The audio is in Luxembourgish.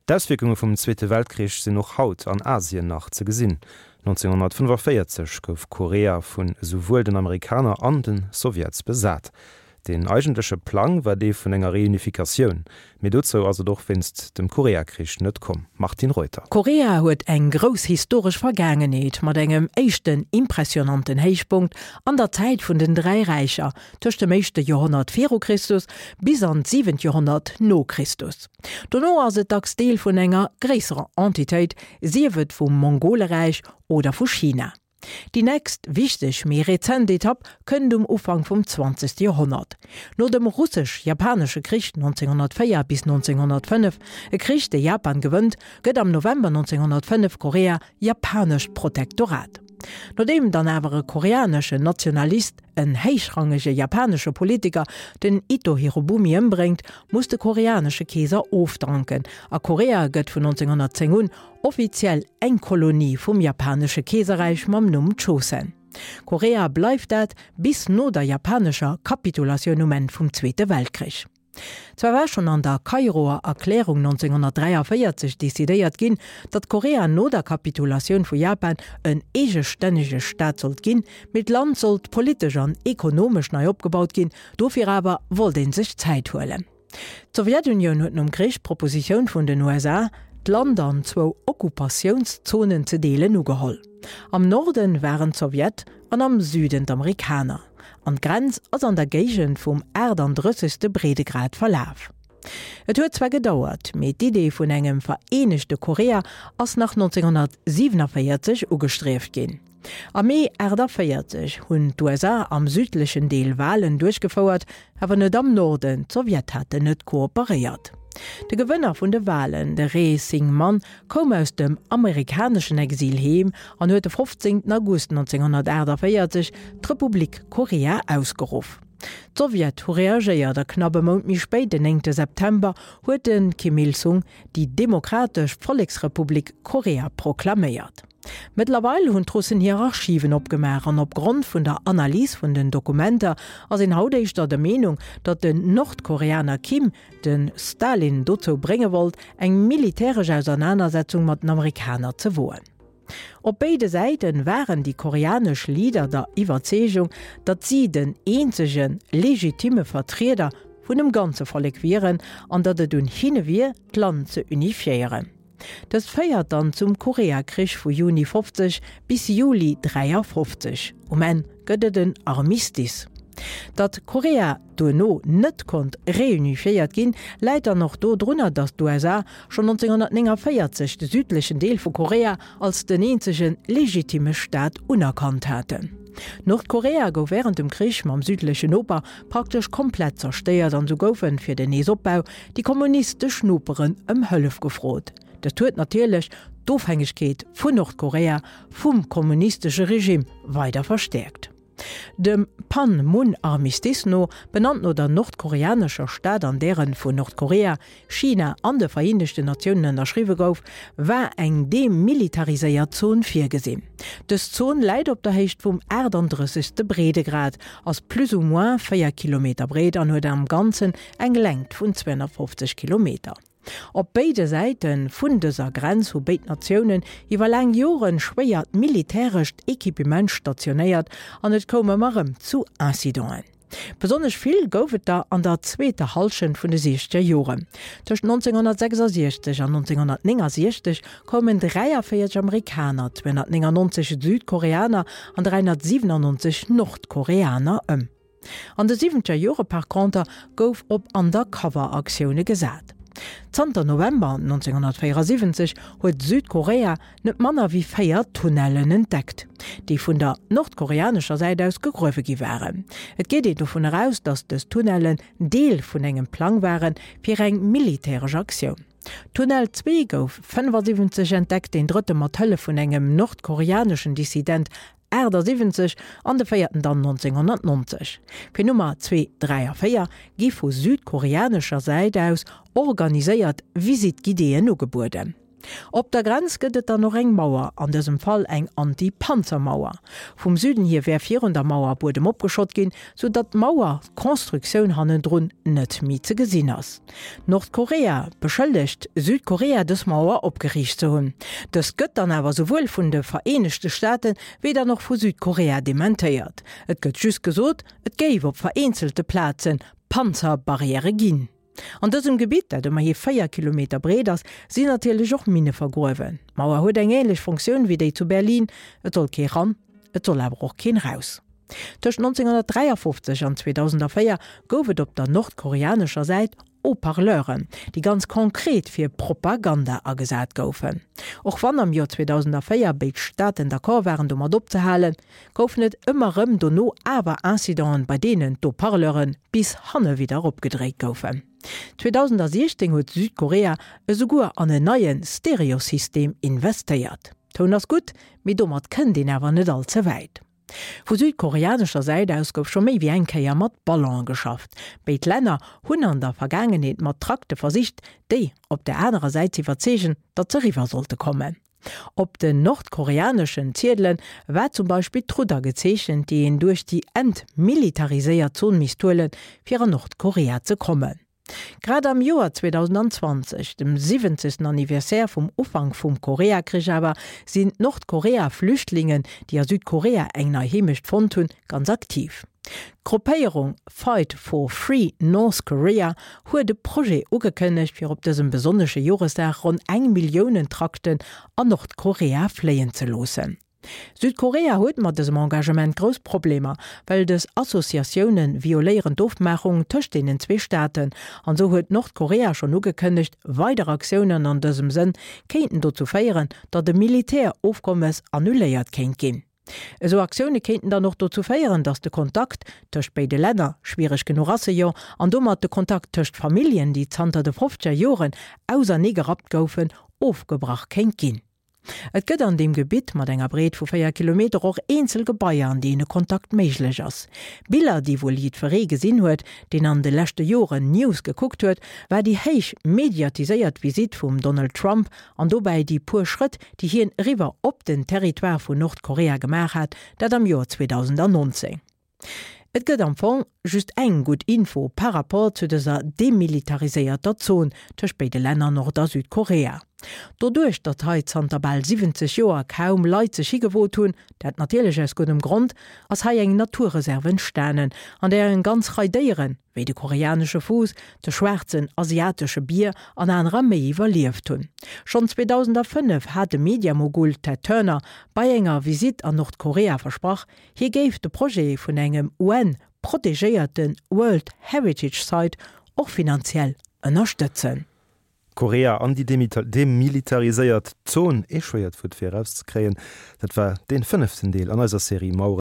D'Auswierkunge vum Zweete Weltkrich sinn och haut an Asien nach ze gesinn. 1945 gouf Korea vun esouwuel den Amerikaner an de Sowjets besat. Deen eigentleche Plang war dee vun enger Reunifikatioun, mee dozou ass et och wéinst dem Koreakrich net komm. Martine Reuter. Korea huet eng grouss historesch Vergaangenheet mat engem éischten impressionanten Héichpunkt an der Zäit vun den 3 Räicher, tëscht dem éischte Joerhonnert viru Christus bis an d'siwent Joerhonnert no Christus. Dono ass et dacks Deel vun enger gréisserer Entitéit, sief et vum Mongoleräich oder vu China. Déi nächst wichteg, méi rezent Etapp kënnt um Ufank vum zwanzegste Joerhonnert. No dem Russesch-Japanesche Krich 1904 bis 1905, e Krich dee Japan gewënnt, gëtt am November 1905 Korea japanescht Protektorat. Nodeem dann awer e koreaneschen Nationalist en héichrangege japanesche Politiker, den Ito Hirobumi, ëmbréngt, muss de koreanesche Keeser ofdanken a Korea gëtt vun 1910 un offiziell eng Kolonie vum japanesche Keeserräich mam Numm Chosen. Korea bleift dat bis no der japanescher Kapitulatioun um Enn vum Zweete Weltkrich. Zwar war schonn an der Kairoer Erklärung 1943 decidéiert ginn, datt Korea no der Kapitulatioun vu Japan en eegestännege Staat sollt ginn, mee d'Land sollt politesch an ekonomesch nei opgebaut ginn, dofir awer wollt ee sech Zäit huelen. D'Sowjetunioun huet nom Krich d'Propositioun vun den USA, d'Land an zwou Okkupatiounszonen ze deelen, ugeholl. Am Norden waren d'Sowjet an am Süden d'Amerikaner, an d'Grenz ass an der Géigend vum 38. Breedegrad verlaf. Et huet zwar gedauert, mee d'Idee vun engem vereenegte Korea ass nach 1947 ugestrieft ginn. Am Mee 48 hunn d'USA am südlechen Deel Walen duerchgefouert, awer net am Norden, d'Sowjet haten net kooperéiert. De Gewënner vun de Walen, de Rhee Syngman, koum aus dem amerikaneschen Exil heem an huet de 15 August 1948 d'Republik Korea ausgeruff. D'Sowjet hu reagéiert a knapp e Mount méi spéit, den 9 September, huet de Kim Il-sung déi Demokratesch Volleksrepublik Korea proklaméiert. Mëttlerweil hunn d'Russen hir Archiven opgemaach an opgrond vun der Analys vun den Dokumenter ass een haut éischter der Meenung, datt den Nordkoreaner Kim de Stalin dozou brénge wollt, eng militäresch Ausernanersetzung mat den Amerikaner ze woen. Op béide Säite waren déi koreanesch Leader der Iwwerzeegung, datt si den eenzege legitimme Vertrieder vun dem ganze Vollek wieren an datt et un hinne wier, d'Land ze unifiéieren. Dëst féiert dann zum Koreakrich vu Juni 50 bis Juli 53. Um Enn gëtt et en Armistice. Datt Korea duerno net konnt reunifiéiert ginn, läit dann och do drunner, datt d'USA schonn 1949 de südlechen Deel vu Korea als den eenzege legitimme Staat unerkannt haten. Nordkorea gouf wärend dem Krich mam südlechen Noper praktesch komplett zerstéiert an sou goufen fir den Neesopbau déi kommunistesch Noperen ëm Hëllef gefrot. Dëst huet natierlech d'Ofhängegkeet vun Nordkorea vum kommunistesche Regime weider verstäerkt. Dem Pan-Mun-Armistice no, benannt no der nordkoreanescher Stad an där en vun Nordkorea, China an de Vereenegten Natiounen ënnerschriwwe gouf, war eng demilitariséiert Zon virgesinn. Dës Zon läit op der Héicht vum 38. Breedegrad, ass plus ou moins 4 Kilometer breet an huet am Ganzen eng Längt vun 250 Kilometer. Op béide Säite vun dëser Grenz hu béid Natiounen iwwer laang Joren schwéiert militärescht Equipement stationéiert an et koum ëmmer erëm zu Incidenten. Besonnesch vill gouf et der an der zweeter Hallschent vun de siechzeger Joren. Tëscht 1966 an 1969 koumen 43 Amerikaner, 299 Südkoreaner an 397 Nordkoreaner ëm. An de siwwenzeger Jore par conter gouf op Undercover-Aktioune gesat. Zanter November 1974 huet Südkorea net manner wéi 4 Tunnellen entdeckt, déi vun der nordkoreanescher Säit aus gegruewe gi waren. Et geet een dovun eraus, datt dës Tunnellen Deel vun engem Plang ware fir eng militäresch Aktioun. Tunnel 2 gouf 75 entdeckt, deen drëtte mat Hëllef vun engem nordkoreaneschen Dissident 78 an de véierten dann 1990. Fir Nummer 2, 3 a 4 gi vu südkoreanescher Säit aus organiséiert Visite guidéeën ugebueden. Op der Grenz gëtt et dann och eng Mauer, an dësem Fall eng Anti-Panzer-Mauer. Vum Süden hier wär virun der Mauer Buedem opgeschott ginn, sou datt d'Mauer-Constructioun hannendrun net méi ze gesinn ass. Nordkorea beschëllegt Südkorea dës Mauer opgeriicht ze hunn. Dëst gëtt dann awer souwuel vun de Vereenegte Staate wéi dann och vu Südkorea dementéiert. Et gëtt just gesot, et géif op vereenzelte Plaze Panzerbarrièrë ginn. An dësem Gebitt, dat ëmmerhi 4 Kilometer breet ass, sinn natierlech och Minne vergruewen. D'Mauer huet eng änlech Funktioun wéi déi zu Berlin, et soll kee ran, et soll awer och keen raus. Tëscht 1953 an 2004 gouf et op der nordkoreanescher Säit Haut-parleuren, déi ganz konkret fir Propaganda agesat goufen. Och wann am Joer 2004 béid Staaten d'accord waren domat opzehalen, goufen et ëmmer rëm dono awer Incidenten, bei deenen d'Haut-parleure bis hanne widder opgedréit goufen. 2016 huet Südkorea esouguer an en neie Stereosystem investéiert. Toun ass gutt, mee domat kënnt een awer net all ze wäit. Vu südkoreanescher Säit aus gouf scho méi wéi eng Kéier mat Ballone geschafft. Béid Länner hunn an der Vergaangenheet mat Trakte versicht, déi op der anerer Säit z'iwwerzeegen, datt se eriwwer sollte kommen. Op den nordkoreaneschen Ziedele war zum Beispill d'Rudder gezeechent, déi een duerch déi entmilitariséiert Zon misst huelen, fir an Nordkorea ze kommen. Grad am Joer 2020, dem 70. Anniversaire vum Ufank vum Koreakrich awer, sinn d'Nordkorea-Flüchtlingen, déi a Südkorea eng nei Heemecht fonnt hunn, ganz aktiv. D'Gruppéierung Fight for Free North Korea huet e Projet ugekënnegt, fir op dësem besonnesche Joresdag ronn eng Milliounen Trakten an Nordkorea fléien ze loossen. Südkorea huet mat dësem Engagement grouss Problemer, well dës Associatioune violéieren d'Ofmaachung tëscht deenen zwee Staaten. An esou huet Nordkorea schonn ugekënnegt, weider Aktiounen an dësem Sënn kéinten dozou féieren, datt e Militärofkommes annuléiert kéint ginn. Esou Aktioune kéinten dann och dozou féieren, datt de Kontakt tëscht béide Länner, schwiereg genuch ass e jo, an domat de Kontakt tëscht Familljen, déi zanter de fofzeger Joren ausernee gerappt goufen, ofgebrach kéint ginn. Et gëtt an deem Gebitt mat enger Breet vu 4 Kilometer och eenzel Gebaier, an deene Kontakt méiglech ass. Biller, déi wuel jiddweree gesinn huet, deen an de leschte Joren News gekuckt huet, war déi héich mediatiséiert Visitt vum Donald Trump an dobäi déi puer Schrëtt, déi hien eriwwer op den Territoire vun Nordkorea gemaach hat, dat am Joer 2019. Et gëtt am Fong just eng gutt Info par rapport zu dëser demilitariséierter Zon tëscht béide Länner Nord a Südkorea. Doduerch, datt hei zanter bal 70 Joer kaum Leit sech higewot hunn, dat natierlech aus guddem Grond, ass hei eng Naturreserve entstanen, an där eng ganz Rei Déieren, wéi de koreanesche Fuuss, de schwaarzen asiatesche Bier an anerer méi iwwerlieft hunn. Schonn 2005 hat de Mediamogul Ted Turner bei enger Visitt an Nordkorea versprach, Hie géif de Projet vun engem UN-protegéierte World Heritage Site och finanziell ënnerstëtzen. Korea an déi demilitariséiert Zon, ee schwéiert Wuert fir erauszekréien. Dat war dee fënneften Deel an eiser Serie Maueren.